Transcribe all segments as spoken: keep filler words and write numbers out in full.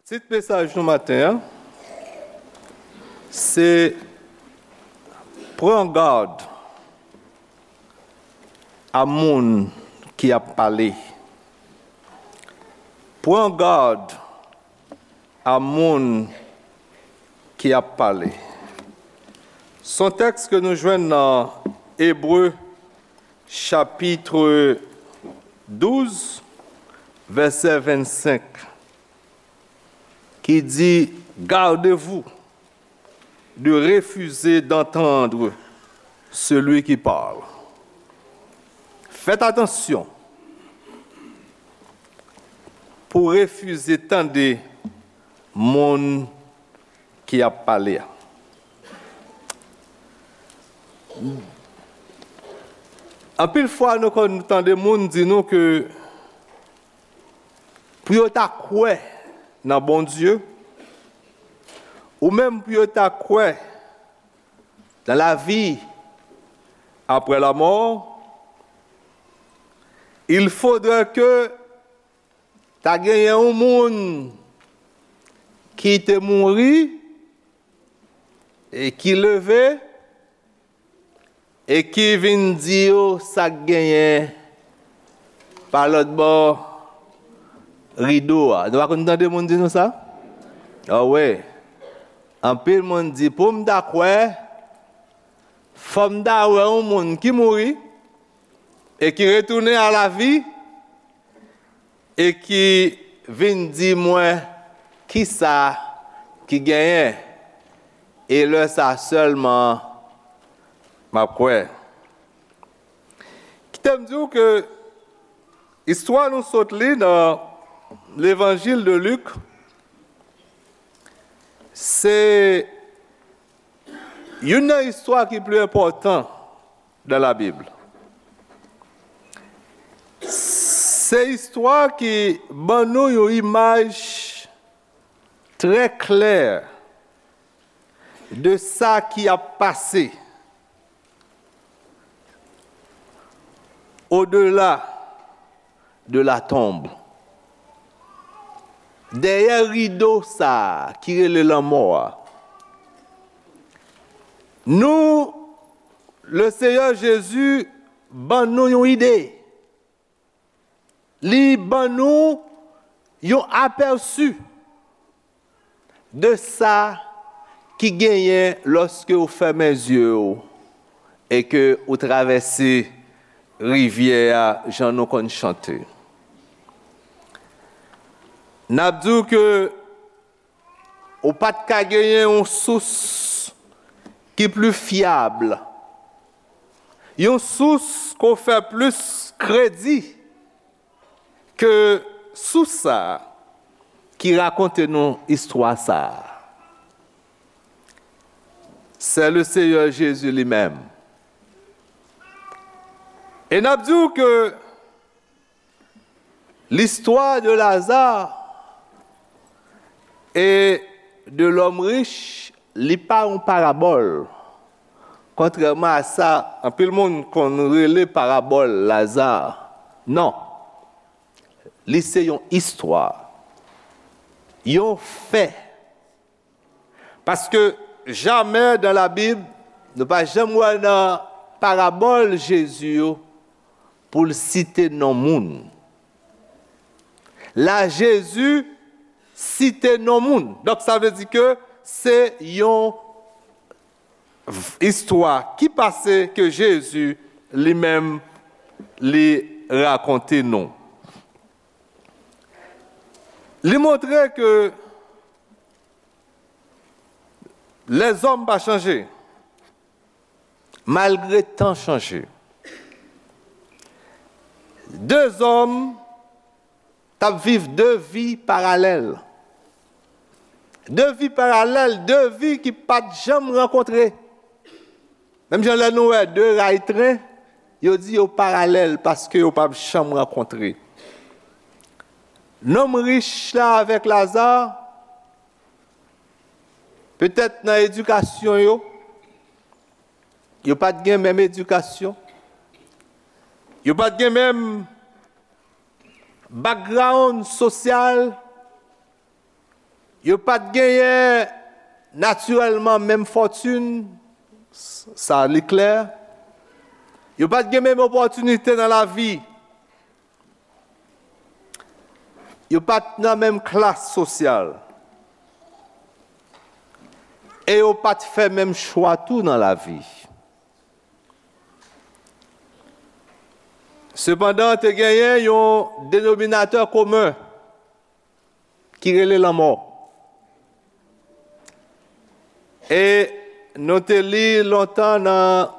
Tit mesaj nou maten an, se Pran gad a moun ki ap pale. Pran gad a moun ki ap pale. Se yon tèks ke nou jwenn nan Ebre, chapit douz, vèsè vennsenk, ki di, Gardez-vous de refuser d'entendre celui qui parle. Faites attention pou refize tande moun ki ap pale a. Anpil fwa, nou konn tande moun di nou ke pou yo ta kwè nan Bondye, ou menm pou yo ta kwè dans la vie après la mort, il faudrait que ta genyen yon moun ki te mouri e ki leve e ki vin di yo sa k genyen pa lòt bò rido a. Nou pa konn tande moun di nou sa? Awe. Anpil moun di, pou m ta kwè, fò m ta wè yon moun ki mouri e ki retounen a lavi e ki vin di mwen kisa ki genyen. E lè sa sèlman m ap kwè. Kite m di w ke istwa nou sot li nan Levanjil de Lik, se youn nan istwa ki pi enpòtan dans la Bible. Se istwa ki ban nou yon imaj trè klè de sa ki ap pase au-delà de la tombe. Dèyè rido sa a ki rele lanmò a, nou, le Seyè Jezi ban nou yon ide. Li ban nou yon apèsi de sa ki genyen lòske w fèmen zye w e ke w travèse rivyè a jan nou konn chante. N ap di w ke ou pa t ka genyen yon sous ki pli fyab, yon sous ke w fè plis kredi ke sous sa a ki rakonte nou istwa sa a. C'est le Seigneur Jésus lui-même. E n ap di w ke listwa de Lazare et de l'homme riche, li pa yon parabòl. Kontrèman a sa anpil moun konn rele parabòl Laza, non. Li se yon istwa, yon fè. Paske jamè dans la Bible, nou pa janm wè nan parabòl Jezi yo pou l site non moun. La, Jezi site non moun. Donk, sa vle di ke se yon v-, istwa ki pase ke Jezi li menm li rakonte nou. Li montre ke lèzòm pa chanje, malgre tan chanje. De zòm t ap viv de vi paralèl. De vi paralèl, de vi ki pa t janm rankontre. Menm jan lè nou wè de ray tren, yo di yo paralèl paske yo p ap janm rankontre. Nonm rich la avèk Laza, petèt nan edikasyon yo, yo pa t gen menm edikasyon, yo pa t gen menm background sosyal, Yo pa t genyen natirèlman menm fòtin, sa li klè. Yo pa t gen menm opòtinite nan lavi. Yo pa t nan menm klas sosyal. E yo pa t fè menm chwa tou nan lavi. Sepandan, te genyen yon denominatè komen ki rele lanmò. E nou te li lontan nan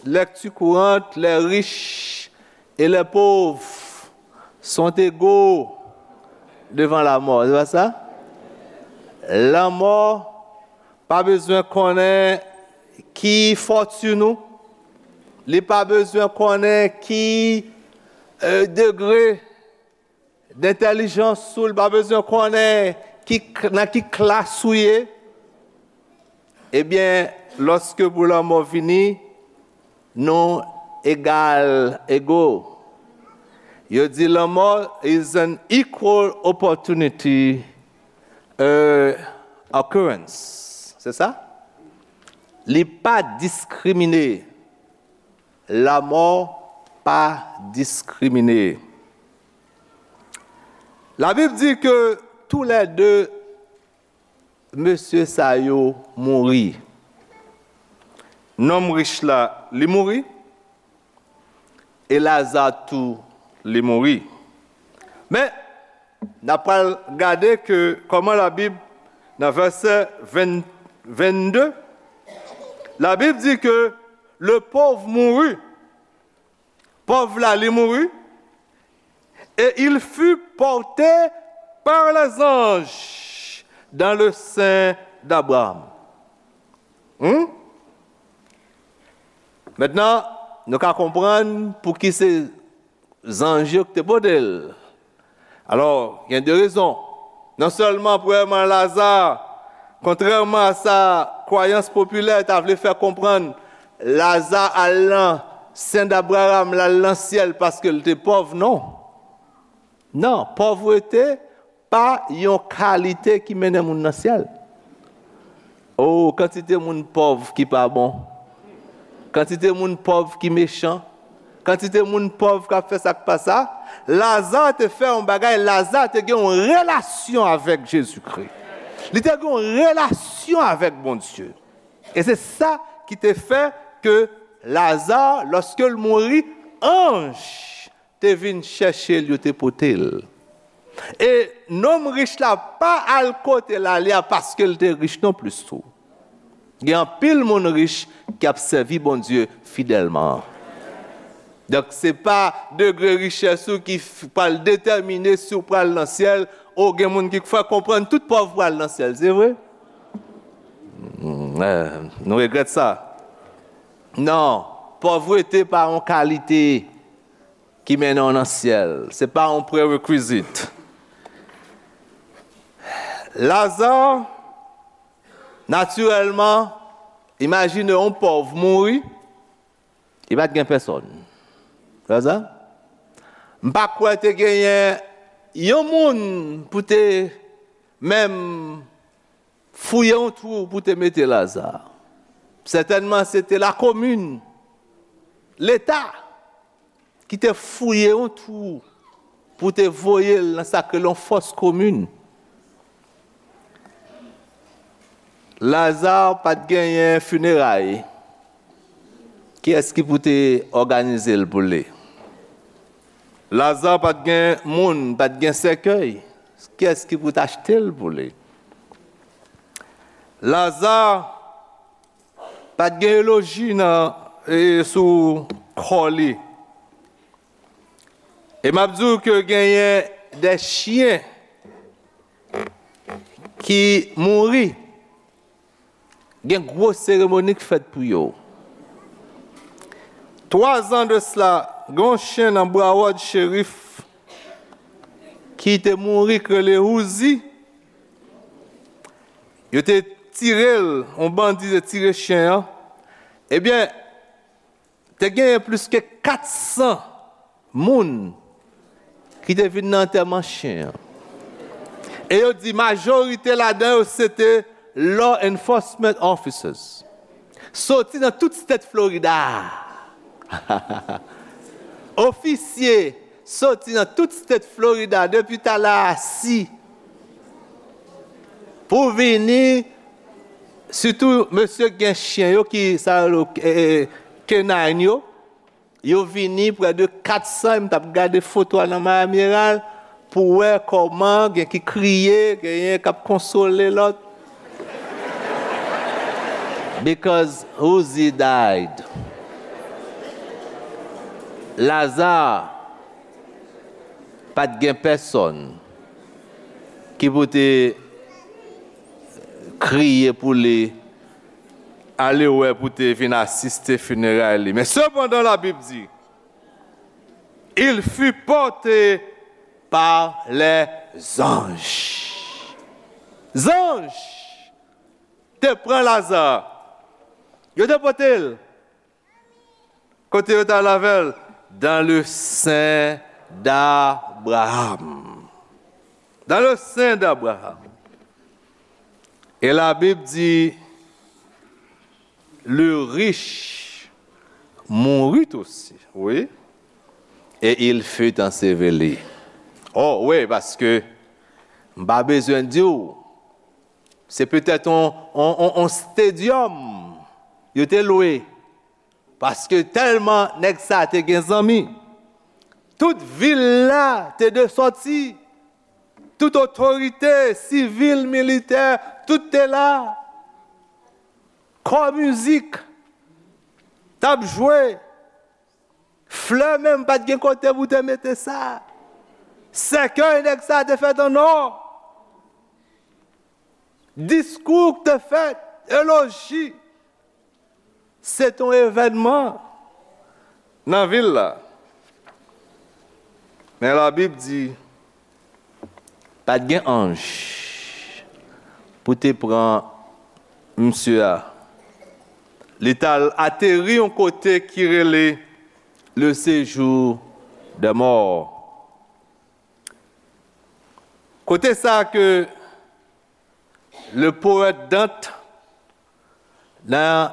Lecture Courante, les riches et les pauvres sont égaux devant la mort. Se pa sa? Lanmò pa bezwen konnen ki fòtin ou, li pa bezwen konnen ki euh, degre dentèlijans ou, li pa bezwen konnen ki, nan ki klas ou ye. Ebyen, lòske pou lanmò vini, nou egal, ego. Yo di lanmò is an equal opportunity uh, occurrence. Se sa? Li pa diskrimine. Lanmò pa diskrimine. Labib di ke toulède mesye sa yo mouri. Nonm rich la, li mouri, e Laza tou, li mouri. Men, n ap pral gade ke kòman Labib, nan vèsè ven, vennde, Labib di ke le pauvre mourut. Pòv la, li mouri. Et il fut porté par les anges dans le sein d'Abraham. Hmm? Mentnan, nou ka konprann pouki se zanj yo ki te pote l. Alò, gen de rezon. Non sèlman, premyèman, Laza, kontrèman a sa kwayans popilè ta vle fè konprann, Laza al nan sen d'Abraham, l al nan syèl paske l te pòv, non. Non, pòvrete pa yon kalite ki mennen moun nan syèl. O, kantite moun pòv ki pa bon. Kantite moun pòv ki mechan. Kantite moun pòv k ap fè sa k pa sa. Laza te fè yon bagay, Laza te gen yon relasyon avèk Jezikri. Li te gen yon relasyon avèk Bondye. E se sa ki te fè ke Laza, lòske l mouri, anj te vin chèche l, yo te pote l. E nonm rich la pa al kote l ale a paske l te rich non plis tou. Gen anpil moun rich ki ap sèvi Bondye fidèlman. Donk, se pa degre richès ou ki f- pral detèmine si w pral nan syèl. O, gen moun ki fè konprann tout pòv pral nan syèl, se vre? Hmm, eh, nou regrèt sa. Non, pòvrete pa yon kalite ki mennen w nan syèl. Se pa yon prerequisite. Laza, natirèlman, imajine yon pòv mouri, li pa t gen pèsòn. Laza, m pa kwè te genyen yon moun pou te menm fouye yon twou pou te mete Laza. Sètènman, se te lakomin, Leta, ki te fouye yon twou pou te voye l nan sa k rele yon fòs komin. Laza pa t genyen fineray. Kiyès ki pou te òganize l pou li? Laza pa t gen moun, pa t gen sèkèy. Kiyès ki pou t achte l pou li? Laza pa t gen eloji nan, e, sou kò li. E m ap di w ke genyen de chyen ki mouri, gen gwo seremoni k fèt pou yo. Twa zan de sila, gen yon chen nan Broward Sheriff ki te mouri, k rele Uzi. Yo te tire l, yon bandi te tire chen an. Ebyen, te genyen plis ke kat san moun ki te vin nan antèman chen an. E yo di majorite ladan yo se te law enforcement officers. Soti nan tout state Florida. Ofisye soti nan tout state Florida depi talè a si pou vini, sitou mesye k gen chen yo ki sa yo rele, eh, eh, canine yo. Yo vini prè de kat san, e m t ap gade foto a nan Miami Herald pou wè kòman gen ki kriye, genyen k ap konsole lòt. Because Uzi died. Laza pa t gen pèsòn ki pou te kriye pou li, ale wè pou te vin asiste fineray li. Men sepandan, Labib di, il fut porté par les anges. Zanj te pran Laza. Yo te pote l. Kote yo t al avè l? Dans le sein d'Abraham. Dans le sein d'Abraham. E Labib di, le riche mourut aussi, wi. Et il fut enseveli. Oh, wi, paske m pa bezwen di w, se petèt on, on, on, on stadium yo te lwe. Paske tèlman nèg sa te gen zanmi. Tout vil la te de sòti. Tout otorite sivil, militè, tout te la. Kò mizik t ap jwe. Flè menm pa t gen kote pou te mete sa. Sèkèy nèg sa te fèt an nò. Diskou k te fèt, eloji. Se t on evènman nan vil la. Men Labib di, pa t gen anj pou te pran misye a. Li t al ateri yon kote ki rele le séjour des morts. Kote sa ke le poète Dante, nan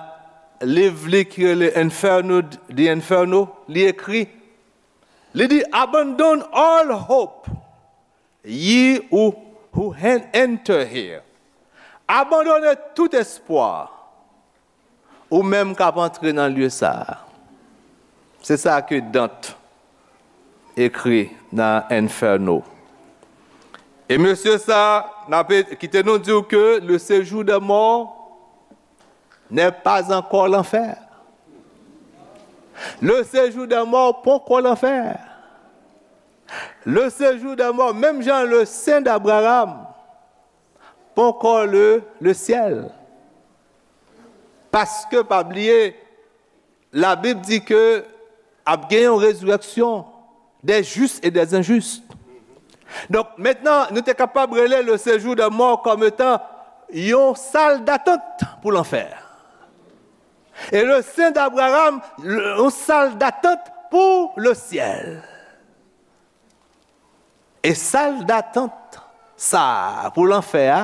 liv li ki rele Inferno, The Inferno, li ekri, li di, "Abandon all hope, ye who, who en-, enter here." Abandone tout espwa, ou menm k ap antre nan lye sa a. Se sa ke Dante ekri nan Inferno. E mesye sa, n ap kite nou di w ke le séjour des morts n'est pas encore l'enfer. Le séjour des morts poko lanfè. Le séjour des morts, menm jan le sein d'Abraham, poko le, le ciel. Paske, pa bliye, Labib di ke ap gen yon rezirèksyon des justes et des injustes. Donk, mentnan, nou te kapab rele le séjour des morts kòm etan yon sal datant pou lanfè. E le sein d'Abraham, le, yon sal datant pou le ciel. E sal datant sa a pou lanfè a,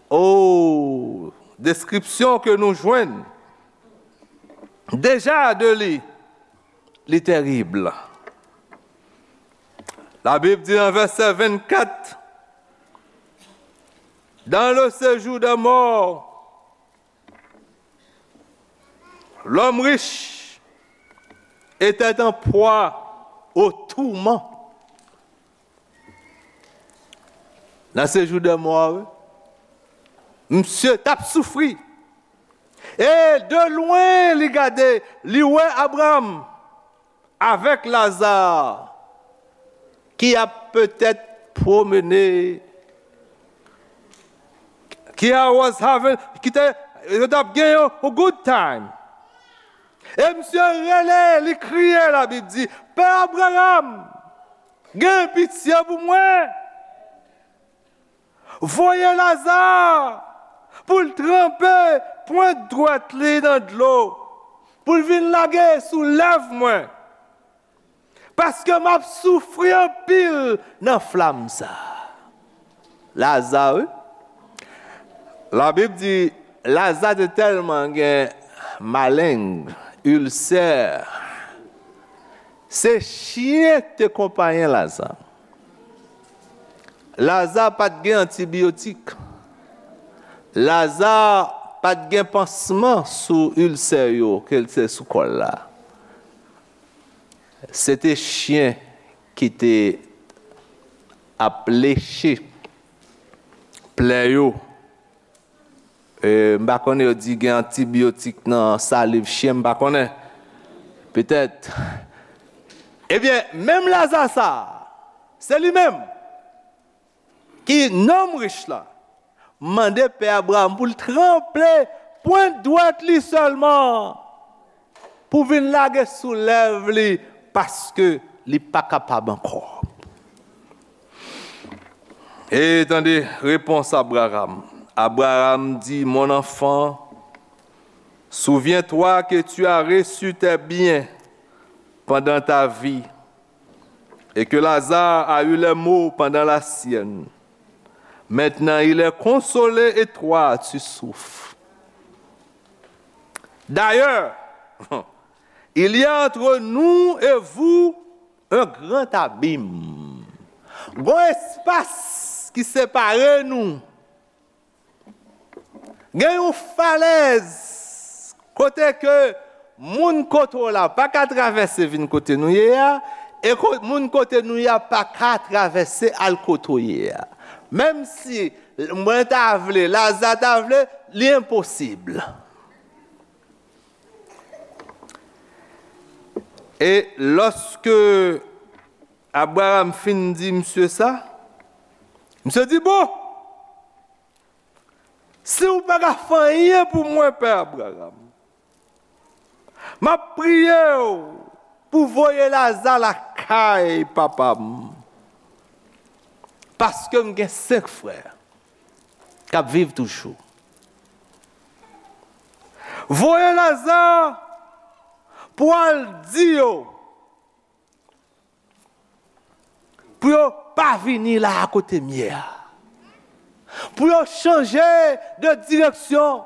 o, deskripsyon ke nou jwenn deja de li, li terib. Labib di nan vèsè vennkat, dans le séjour des morts, l'homme riche était en proie au tourment. Nan séjour des morts, wi, misye t ap soufri. E de lwen, li gade, li wè Abraham avèk Laza ki ap petèt pwomene, ki a was having, ki te, yo t ap gen yon, yon good time. E misye rele, li kriye, Labib di, "Pè Abraham, gen pitye pou mwen. Voye Laza pou l tranpe pwent dwèt li nan dlo, pou l vin lage sou lèv mwen. Paske m ap soufri anpil nan flam sa a." Laza, wi. Labib di, Laza te tèlman gen maleng, ilsè. Se chen te konpayen Laza. Laza pa t gen antibiyotik. Laza pa t gen pansman sou ilsè yo, ke l te sou kò l la. Se te chen ki te ap leche plè yo. E, m pa konnen yo di gen antibiyotik nan saliv chen, m pa konnen. Petèt. Ebyen, menm Laza sa a, se li menm ki nonm rich la mande pè Abraram pou l tranpe pwent dwèt li sèlman pou vin lage sou lèv li, paske li pa kapab ankò. E tande repons Abraram. Abraram di, Mon enfant, souviens-toi que tu as reçu tes biens pendant ta vie, et que Lazare a eu les maux pendant la sienne. Maintenant, il est consolé et toi, tu souffres. D'ailleurs, il y a entre nous et vous un grand abîme. Gon espas ki separe nou. Gen yon falèz kote ke moun kote w la pa ka travèse vin kote nou ye a, e ko-, moun kote nou ye a pa ka travèse al kote w ye a. Menm si mwen ta vle, Laza ta vle, li enposib. E lòske Abraram fin di misye sa, misye di, Bon, si w pa ka fè anyen pou mwen, pè Abraram, m ap priye w pou voye Laza lakay papa m, paske m gen senk frè k ap viv toujou. Voye Laza pou al di yo, pou yo pa vini la a kote m ye a. Pou yo chanje de direksyon,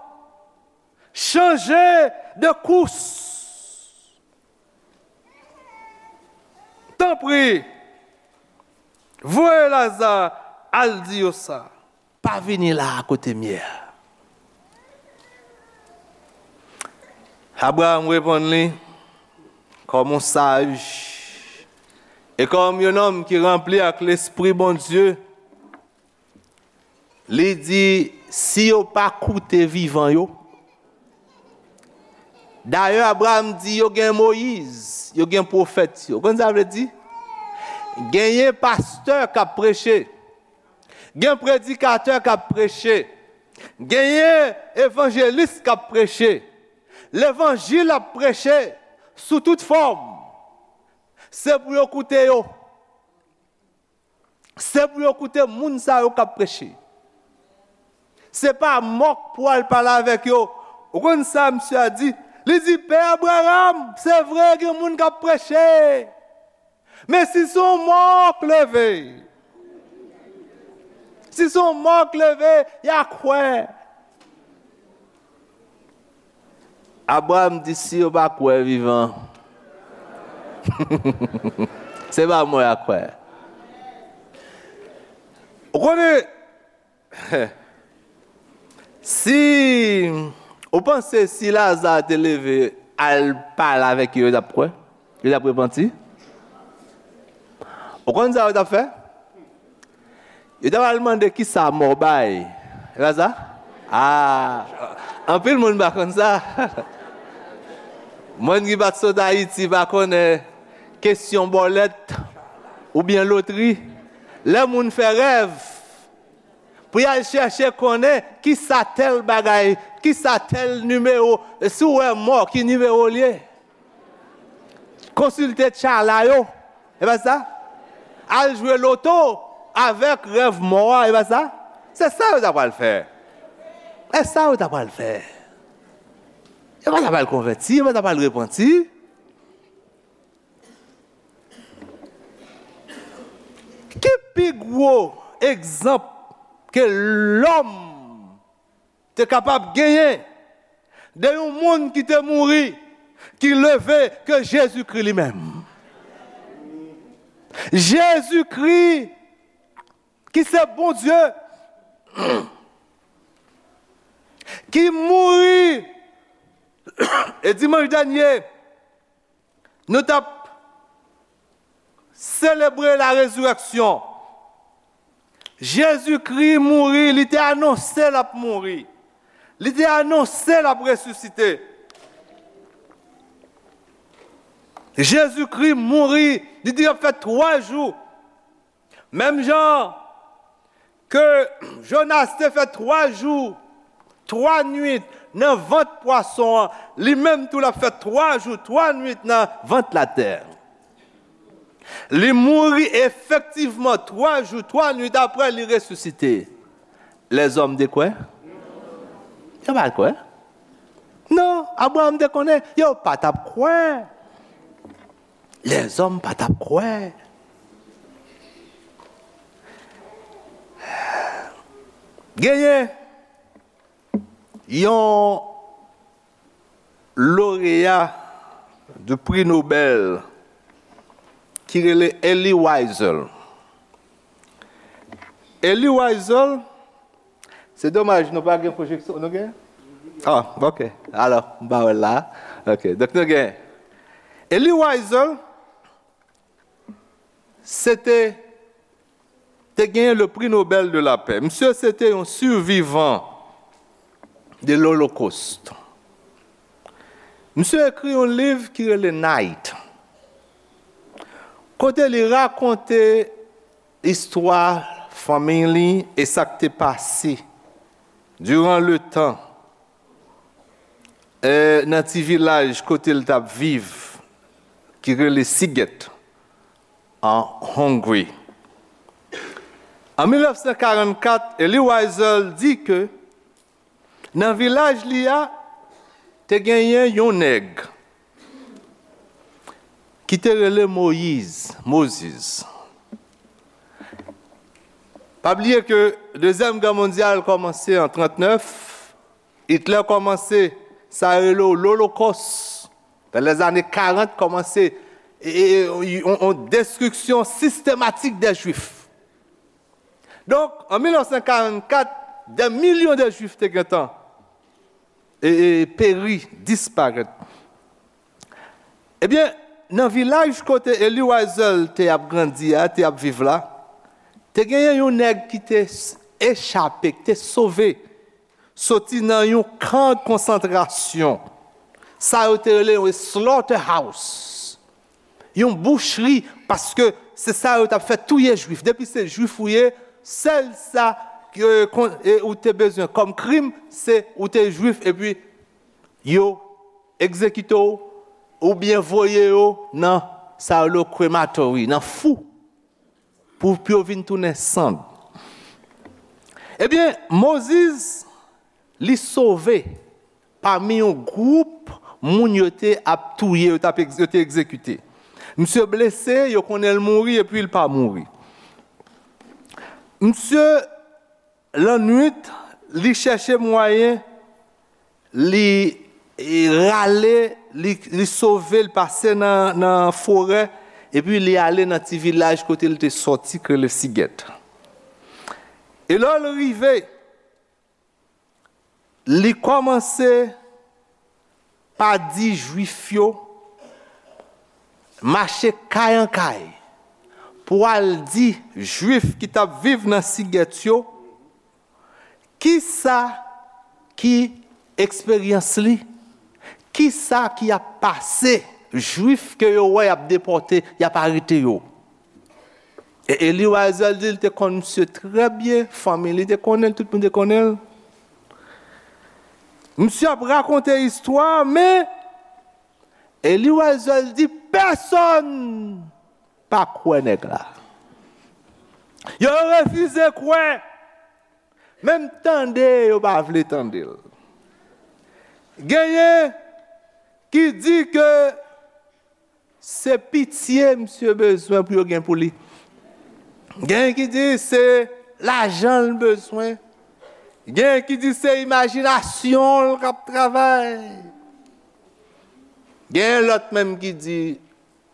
chanje de kous. Tanpri, voye Laza al di yo sa. Pa vini la a kote m ye a. Abraram reponn li, kòm yon saj, e kòm yon nonm ki ranpli ak Lespri Bondye, li di, Si yo pa koute vivan yo, Dayè, Abraram di, Yo gen Moyiz, yo gen pwofèt yo. Ou konn sa vle di? Genyen pastè k ap preche. Gen predikatè k ap preche. Genyen evanjelis k ap preche. Levanjil ap preche sou tout fòm. Se pou yo koute yo. Se pou yo koute moun sa yo k ap preche. Se pa mò k pou al pale avèk yo. Ou konn sa misye a di? Li di, Pè Abraram, se vre, gen moun k ap preche. Men si se yon mò k leve, si se yon mò k leve, y a kwè. Abraram di, Si yo pa kwè vivan, se pa mò y a kwè. Ou konnen, si ou panse si Laza te leve al pale avèk yo, yo t ap kwè? Yo t ap repanti? Ou konn sa yo t ap fè? Yo t ap al mande kisa mò bay. E pa sa? Ah, anpil moun pa konn sa. Moun ki pa t sot Ayiti pa konnen kesyon bòlèt oubyen lotri. Lè moun fè rèv, pou y al chèche konnen kisa tèl bagay, kisa tèl nimewo, si w wè mò, ki nimewo l ye. Konsilte tchala yo, e pa sa? Al jwe loto avèk rèv mò a, e pa sa? Se sa yo ta pral fè. E sa yo ta pral fè. Yo pa ta pral konvèti, yo pa ta pral repanti. Ki pi gwo egzanp ke lòm te kapab genyen de yon moun ki te mouri, ki leve, ke Jezikri li menm. Jezikri, ki se Bondye, ki mouri, e dimanch dènye, nou t ap selebre la rezirèksyon. Jezikri mouri, li te anonse l ap mouri. Li te anonse l ap resisite. Jezikri mouri, li di l ap fè twa jou. Menm jan ke Jonas te fè twa jou, twa nuit nan vant pwason an, li menm tou l ap fè twa jou, twa nuit nan vant latè. Li mouri efektivman twa jou, twa nuit apre li resisite. Lèzòm te kwè? Yo pa t kwè. Non, Abraram te konnen, yo pa t ap kwè. Lèzòm pa t ap kwè. Genyen yon loreya du prix Nobel ki rele Elie Wiesel. Elie Wiesel, se domaj nou pa gen pwojeksyon, nou gen? Ah, ok. Alò, m pa wè l la. Ok, donk nou gen Elie Wiesel, se te, te genyen le prix Nobel de la paix. Misye se te yon sivivan de l'Holocauste. Misye ekri yon liv ki rele Night, kote li rakonte istwa fanmiy li e sa k te pase diran letan, eh, nan ti vilaj kote l t ap viv, ki rele Siget, an Hongri. An mil nèf san karannkat, Elie Wiesel di ke nan vilaj li a, te genyen yon nèg ki te rele Moyiz, Moses. Pa bliye ke Dezyèm Gè Mondyal kòmanse an trannèf, Hitler kòmanse sa yo rele w Lolokòs. Dans les années quarante, kòmanse e, e, e, yon, yon destriksyon sistematik dè Jwif. Donk, an mil nèf san karannkat, dè milyon de Jwif te gentan e, e, peri, disparèt. Ebyen, nan vilaj kote Elie Wiesel te ap grandi a, te ap viv la, te genyen yon nèg ki te s- echape, ki te sove, soti nan yon kan konsantrasyon. Sa yo te rele yon slaughterhouse. Yon bouchri, paske se sa yo t ap fè, touye Jwif. Depi se Jwif ou ye, sèl sa ke kon- e ou te bezwen kòm krim, se ou te Jwif, epi yo egzekite w, oubyen voye yo nan sa yo rele krematori, nan fou, pou, pou yo vin tounen sann. Ebyen, Moses, li sove pami yon gwoup moun yo te ap touye, yo t ap egz- yo te egzekite. Misye blese, yo konnen l mouri, epi l pa mouri. Misye, lannwit, li chèche mwayen, li, e, rale, li, li sove, li pase nan, nan forè, epi li ale nan ti vilaj kote li te sòti, ki rele Siget. E lè l rive, li kòmanse pa di Jwif yo, mache kay an kay, pou al di Jwif ki t ap viv nan Siget yo, kisa ki eksperyans li, kisa ki ap pase Jwif ke yo wè y ap depòte, y ap arete yo. E Elie Wiesel di l te konn misye trè byen, fanmi li te konnen l, tout moun te konnen l. Misye ap rakonte istwa, men Elie Wiesel di pèsonn pa kwè nèg la. Yo refize kwè. Menm tande, yo pa vle tande l. Genyen ki di ke se pitye misye bezwen pou yo gen pou li. Genyen ki di se lajan l bezwen. Gen ki di se imajinasyon l k ap travay. Gen lòt menm ki di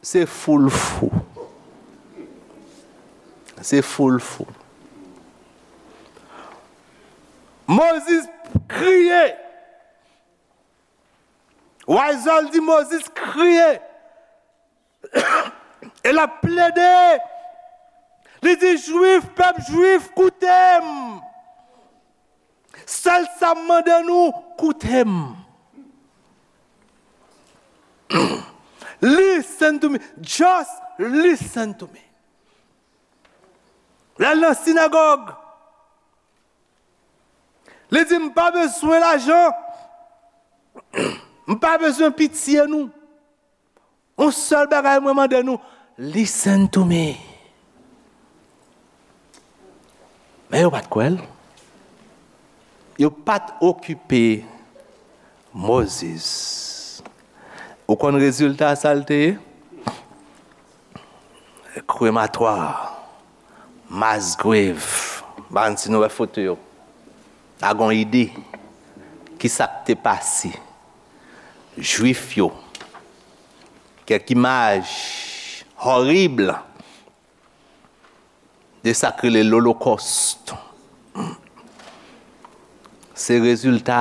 se fou l fou. Se fou l fou. Mozis kriye. Wayzòl di Mozis kriye. E l ap plede. Li di, Jwif, pèp Jwif, koute m. Sèl sa m mande nou, koute m. Listen to me. Just listen to me. L al nan sinagòg. Li di, m pa bezwen lajan. M pa bezwen pitye nou. Yon sèl bagay mwen mande nou, listen to me. Men yo pa t kwè l. Yo pa t okipe Mozis. Ou konn rezilta sa l te ye? Krematwa, mass grave. M pa konn si nou wè foto yo. A gon ide ki sa k te pase. Jwif yo. Kèk imaj horib de sa k rele Lolokòst. Se rezilta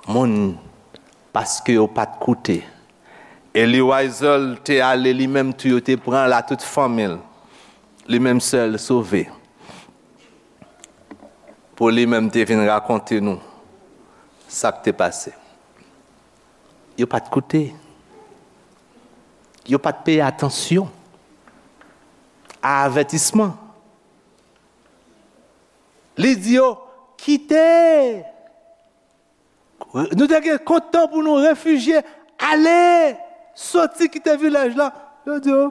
moun paske yo pa t koute. Elie Wiesel te ale, li menm tou yo te pran l a tout fanmi l. Li menm sèl sove. Pou li menm te vin rakonte nou sa k te pase. Yo pa t koute. Yo pa t peye atansyon a avètisman. Li di yo, kite. Nou te gen kontan pou nou refijye, ale, soti kite vilaj la. Yo di yo,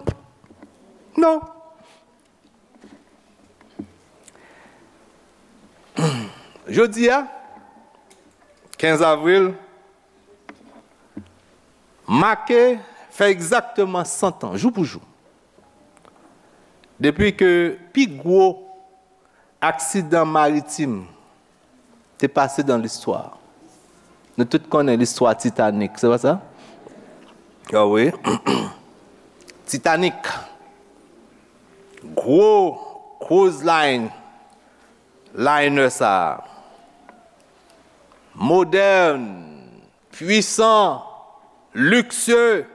non. Jodi a, kenz avril, make fè egzakteman san tan, jou pou jou, depi ke pi gwo aksidan maritim te pase dan listwa. Nou tout konnen listwa Titanic, se pa sa? Ah wi. Titanic. Gwo cruise line, liner sa a. Modèn, pwisan, liksye.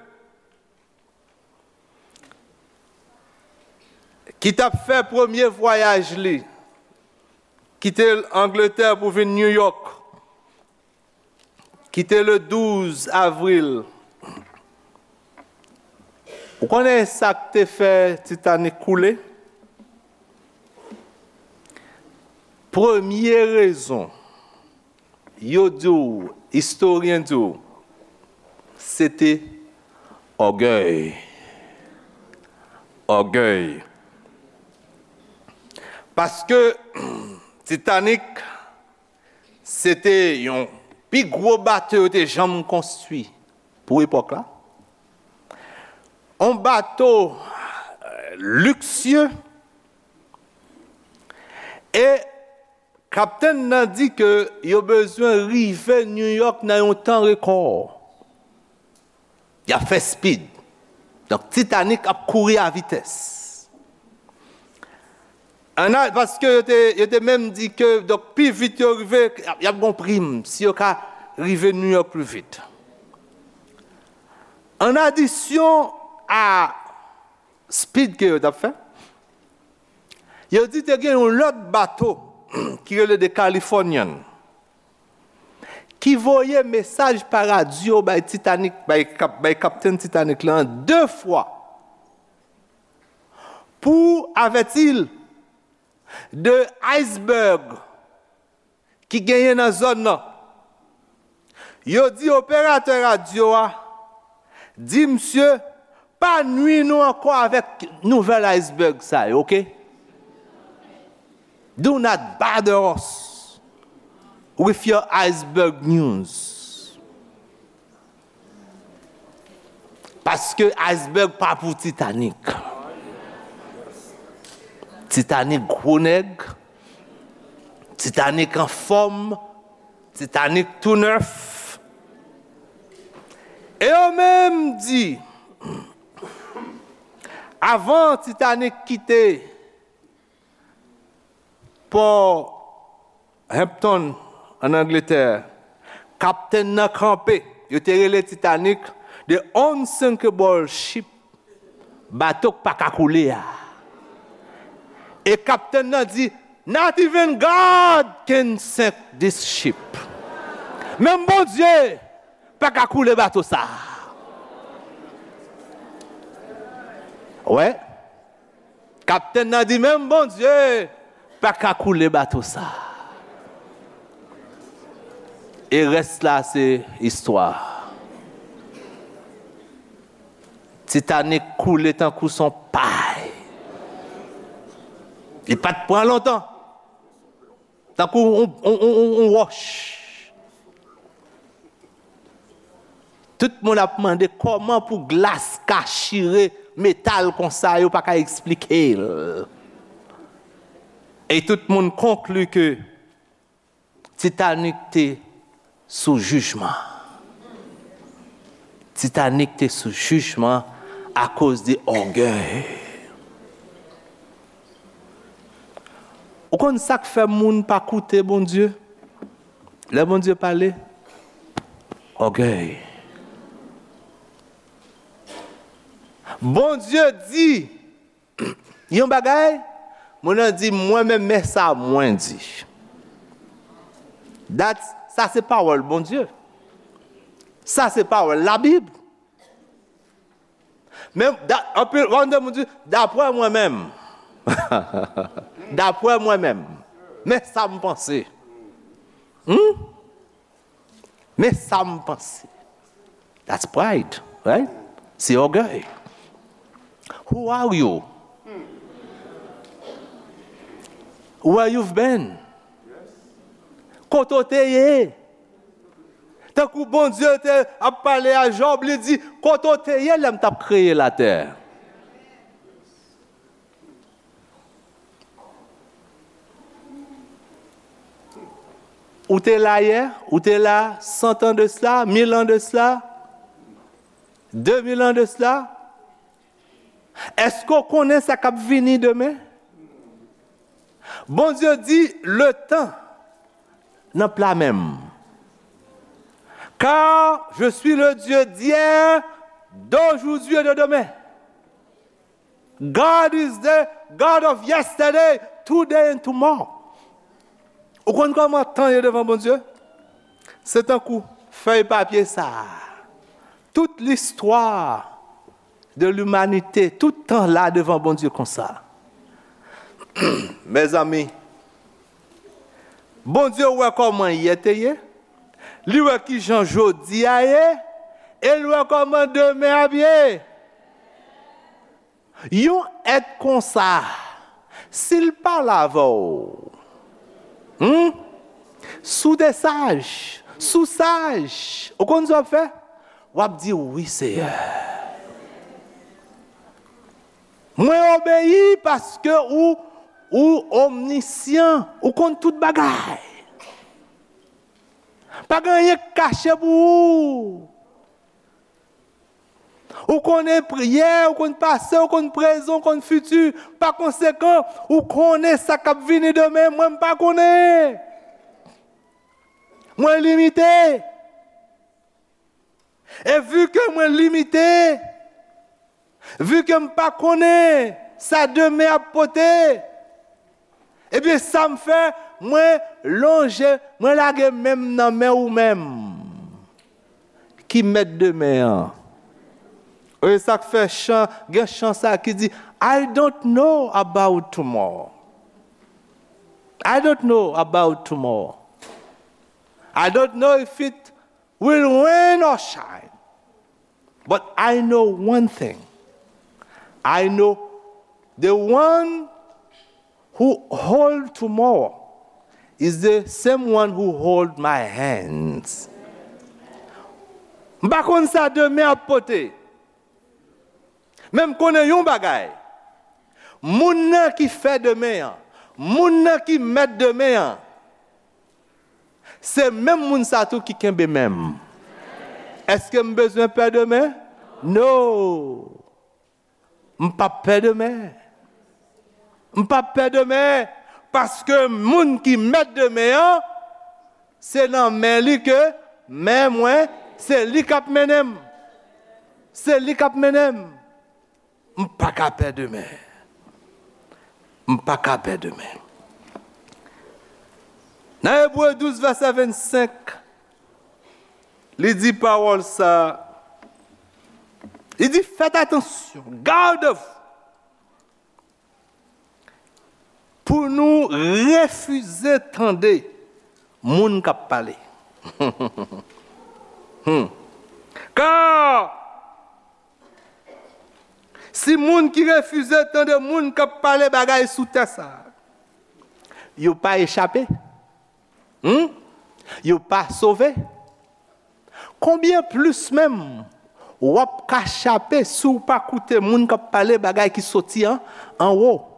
Ki t ap fè premye vwayaj li, kite Angletè pou vin New York, kite le douz avril. Ou konnen sa k te fè Titanic koule? Premye rezon, yo di w, istoryen di w, se te ògèy. Ògèy. Paske Titanic, se te yon pi gwo bato yo te janm konstwi pou epòk la. Yon bato, euh, liksye. E kaptenn nan di ke yo bezwen rive New York nan yon tan rekò. Y ap fè speed. Donk, Titanic ap kouri a vitès. Ann a, paske yo te, yo te menm di ke, donk, pi vit yo rive, y ap, y ap gon prim si yo ka rive New York pli vit. An adisyon a speed ke yo t ap fè, yo di te gen yon lòt bato ki rele The Californian ki voye mesaj pa radyo bay Titanic, bay kap-, bay kaptenn Titanic la de fwa pou avèti l de iceberg ki genyen nan zòn nan. Yo di operatè radyo a, di misye, pa nwi nou ankò avèk nouvèl iceberg sa yo, oke? Do not bother us with your iceberg news. Paske iceberg pa pou Titanic. Titanik gwo nèg, Titanik anfòm, Titanik tou nèf. E yo menm di, avan Titanik kite pò Hampton, ann Angletè, kaptenn nan kanpe. Yo te rele Titanic the unsinkable ship, bato k pa ka koule a. E kaptenn nan di, "Not even God can sink this ship." Menm Bondye pa ka koule bato sa. Wè. Kaptenn nan di, "Menm Bondye pa ka koule bato sa." E rès la se istwa. Titanic koule tankou son pay. Li pa t pran lontan. Tankou yon, yon, yon, yon, yon wòch. Tout moun ap mande kòman pou glas ka chire metal konsa, yo pa ka eksplike l. E tout moun konkli ke Titanic te sou jijman. Titanic te sou jijman akoz de ògèy. Ou konn sa k fè moun pa koute Bondye? Lè Bondye pale, ògèy. Bondye di yon bagay, moun nan di, "Mwen menm, men sa mwen di." That, sa se pawòl Bondye. Sa se pawòl Labib. Men, da, anpil, w ap tande moun di, "Daprè mwen menm." Daprè mwen menm. Men sa m panse. Hmm? Men sa m panse. That's pride, right? Se ògèy. Who are you? Where you've been? Kote w te ye? Tankou Bondye te ap pale a Jòb, li di, "Kote w te ye lè m t ap kreye latè?" Ou te la yè, ou te la cent ans de cela, mil ans de cela, deux mille ans de cela. Èske w konnen sa k ap vini demen? Bondye di, "Letan nan pla men m." Car je suis le Dieu d'hier, d'aujourd'hui et de demain. God is the God of yesterday, today and tomorrow. Ou konn kòman tan ye devan Bondye? Se tankou fèy papye sa a. Tout listwa de limanite, tout tan la devan Bondye konsa. Mezanmi, Bondye wè kòman yè te ye, li wè kijan jodi a ye, e li wè kòman demen ap ye. Yon èt konsa, si l pale avè w, hmm? Si w te saj, si w saj, ou konn sa w ap fè? W ap di, "Wi, Seyè. Mwen obeyi paske ou, ou omnisyan, ou konn tout bagay. Pa gen anyen k kache pou ou." Ou konnen pri-, yè, ou konn pase, ou konn prezan, ou konn fiti. Pa konsekan, ou konnen sa k ap vini demen. Mwen, m pa konnen. Mwen limite. E vi ke mwen limite, vi ke m pa konnen sa demen ap pote, ebyen, sa m fè, mwen lonje, mwen lage men m nan men ou menm ki mèt demen an. E sa k fè chan, gen chan sa ki di, "I don't know about tomorrow. I don't know about tomorrow. I don't know if it will rain or shine. But I know one thing. I know the one who hold tomorrow is the same one who hold my hands." M pa konn sa demen ap pote. Men m konnen yon bagay. Moun nan ki fè demen an, moun nan ki mèt demen an, se menm moun sa tou ki kenbe men m. Èske m bezwen pè demen? No. M p ap pè demen. M p ap pè demen, paske moun ki mèt demen an, se nan men li ke men mwen, se li k ap mennen m. Se li k ap mennen m. M pa ka pè demen. M pa ka pè demen. Nan Ebre douz, vèsè vennsenk, li di pawòl sa, li di, faites attention, gardez-vous, pou nou refize tande moun k ap pale. Hmm. Kar si moun ki refize tande moun k ap pale bagay sou tè sa a, yo pa echape, hmm? Yo pa sove. Konbyen plis menm w ap ka chape si w pa koute moun k ap pale bagay ki soti an, anwo?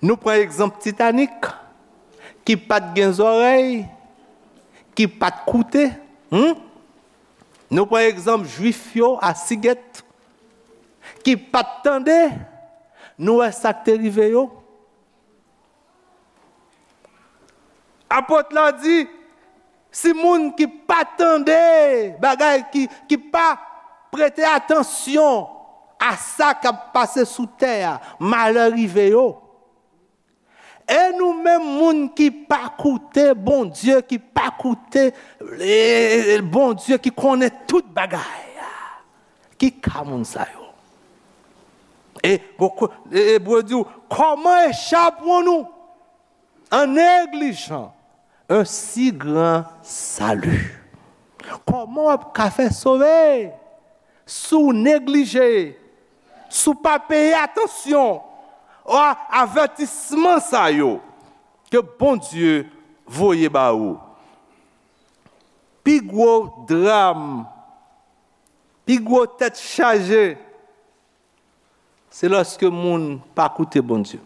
Nou pran egzanp Titanik, ki pa t gen zòrèy, ki pa t koute. Hmm? Nou pran egzanp Jwif yo a Sigèt, ki pa t tande nou wè sa k te rive yo. Apot la di, si moun ki pa tande bagay, ki, ki pa prete atansyon a sa k ap pase sou tè a, malè rive yo. E nou menm, moun ki pa koute Bondye, ki pa koute, e, Bondye ki konnen tout bagay, ki ka moun sa yo? E, e, e Bondye di w, comment échapperons-nous en négligeant un si grand salut? Kòman w ap ka fè sove si w neglije, si w pa peye atansyon a avètisman sa yo ke Bondye voye ba ou? Pi gwo dram, pi gwo tèt chaje, se lòske moun pa koute Bondye.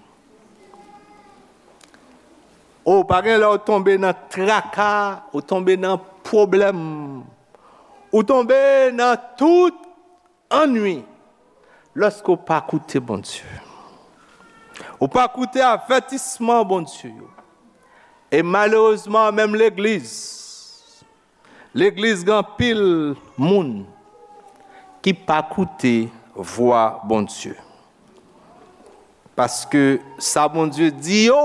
O, pa gen lè w tonbe nan traka, ou tonbe nan pwoblèm, ou tonbe nan tout annwi, lòske w pa koute Bondye. Ou pa koute avètisman Bondye yo. E malerezman, menm legliz, Legliz gen anpil moun ki pa koute vwa Bondye. Paske sa Bondye di yo,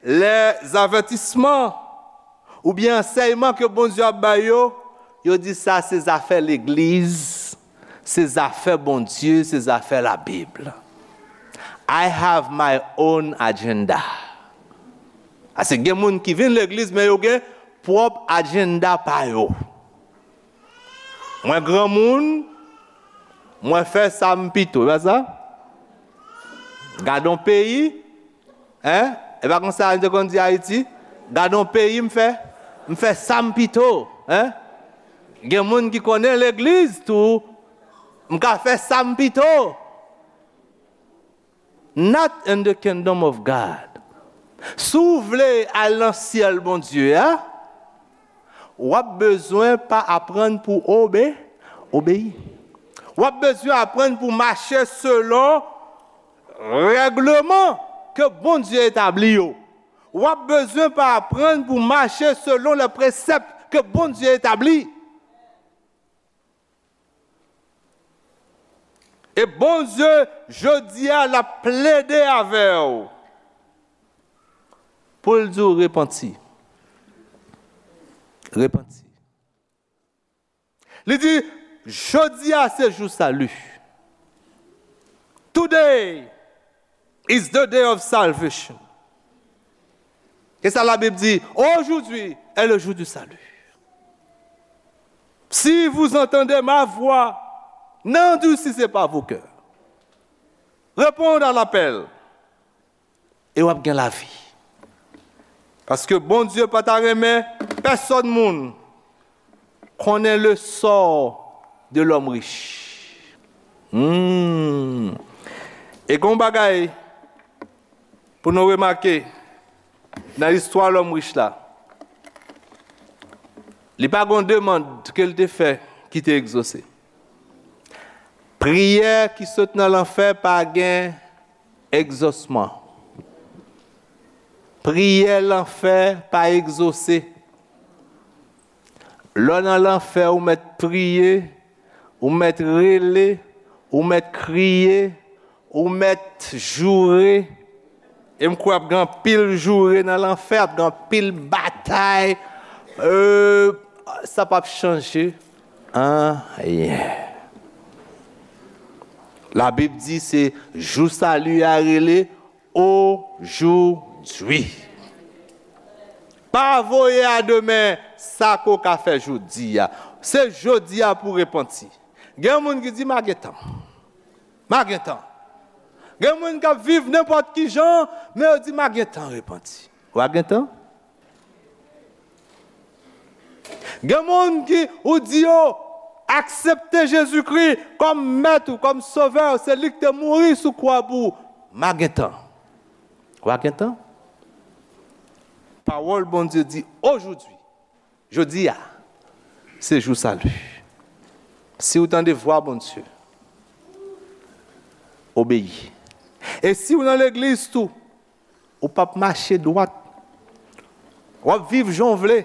lèzavètisman oubyen ansèyman ke Bondye ap bay yo, yo di sa se zafè legliz, se zafè Bondye, se zafè Labib. I have my own agenda. Ase gen moun ki vin legliz, men yo gen pwòp ajenda pa yo. Mwen granmoun, mwen fè sa m pito, e pa sa? Gade yon peyi, en? E pa konsa yo te konn di Ayiti? Gade yon peyi m fè, m fè sa m pito, en? Gen moun ki konnen legliz tou, m ka fè sa m pito. Not in the kingdom of God. Si w vle al nan syèl Bondye a, w ap bezwen pa aprann pou obe, obeyi. W ap bezwen aprann pou mache selon règleman ke Bondye etabli yo. W ap bezwen pa aprann pou mache selon lè presèp ke Bondye etabli. E Bondye, jodi a, l ap plede avè w pou l di w repanti. Repanti. Li di, jodi a se jou sali. Today is the day of salvation. E sa Labib di, aujourd'hui est le jour du salut. Si vous entendez ma voix, n'endurcissez pas vos cœurs. Répondez à l'appel. E w ap gen lavi. Paske Bondye pa ta renmen pèsòn moun konnen le sort de l'homme riche. Hmm. E gen yon bagay pou nou remake nan istwa lòm rich la. Li pa gen yon demann ke l te fè ki te egzose. Priyè ki sot nan lanfè pa gen egzosman. Priyè lanfè pa egzose. Lè w nan lanfè, ou mèt priye, ou mèt rele, ou mèt kriye, ou mèt joure. E m kwè ap gen anpil joure nan lanfè, ap gen anpil batay. Euh, sa p ap chanje anyen. Labib di se jou sali a rele ojodwi. Pa voye a demen sa ke w ka fè jodi a. Se jodi a pou w repanti. Gen moun ki di, "M a gen tan. M a gen tan." Gen moun k ap viv nenpòt ki jan, men yo di, "M a gen tan repanti." W a gen tan? Gen moun ki, ou di yo, aksepte Jezikri kòm mèt ou, kòm sovè ou, se li ki te mouri sou kwa pou ou. M a gen tan. W a gen tan? Pawòl Bondye di, ojodwi, jodi a, se jou sali. Si w tande vwa Bondye, obeyi. E si w nan legliz tou, ou p ap mache dwat. W ap viv jan w vle.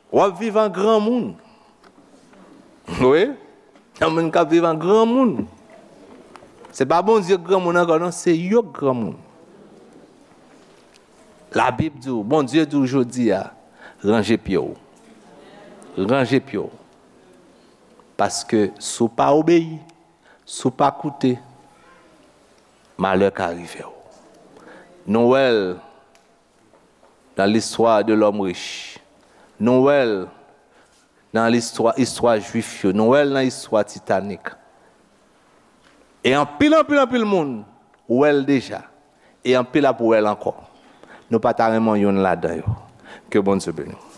W ap viv an granmoun. Wi. Gen moun k ap viv an granmoun. Se pa Bondye k granmoun ankò, non, se yo k granmoun. Labib di w, Bondye di w jodi a, ranje pye w. Ranje pye w. Paske si w pa obeyi, si w pa koute, malè ka rive w. Nou wè l nan l'histoire de l'homme riche. Nou wè l nan listwa, istwa jwif yo. Nou wè l nan istwa Titanic. E anpil, anpil, anpil moun wè l deja. E anpil ap wè l ankò. Nou pa ta renmen youn ladan yo. Ke Bondye beni w.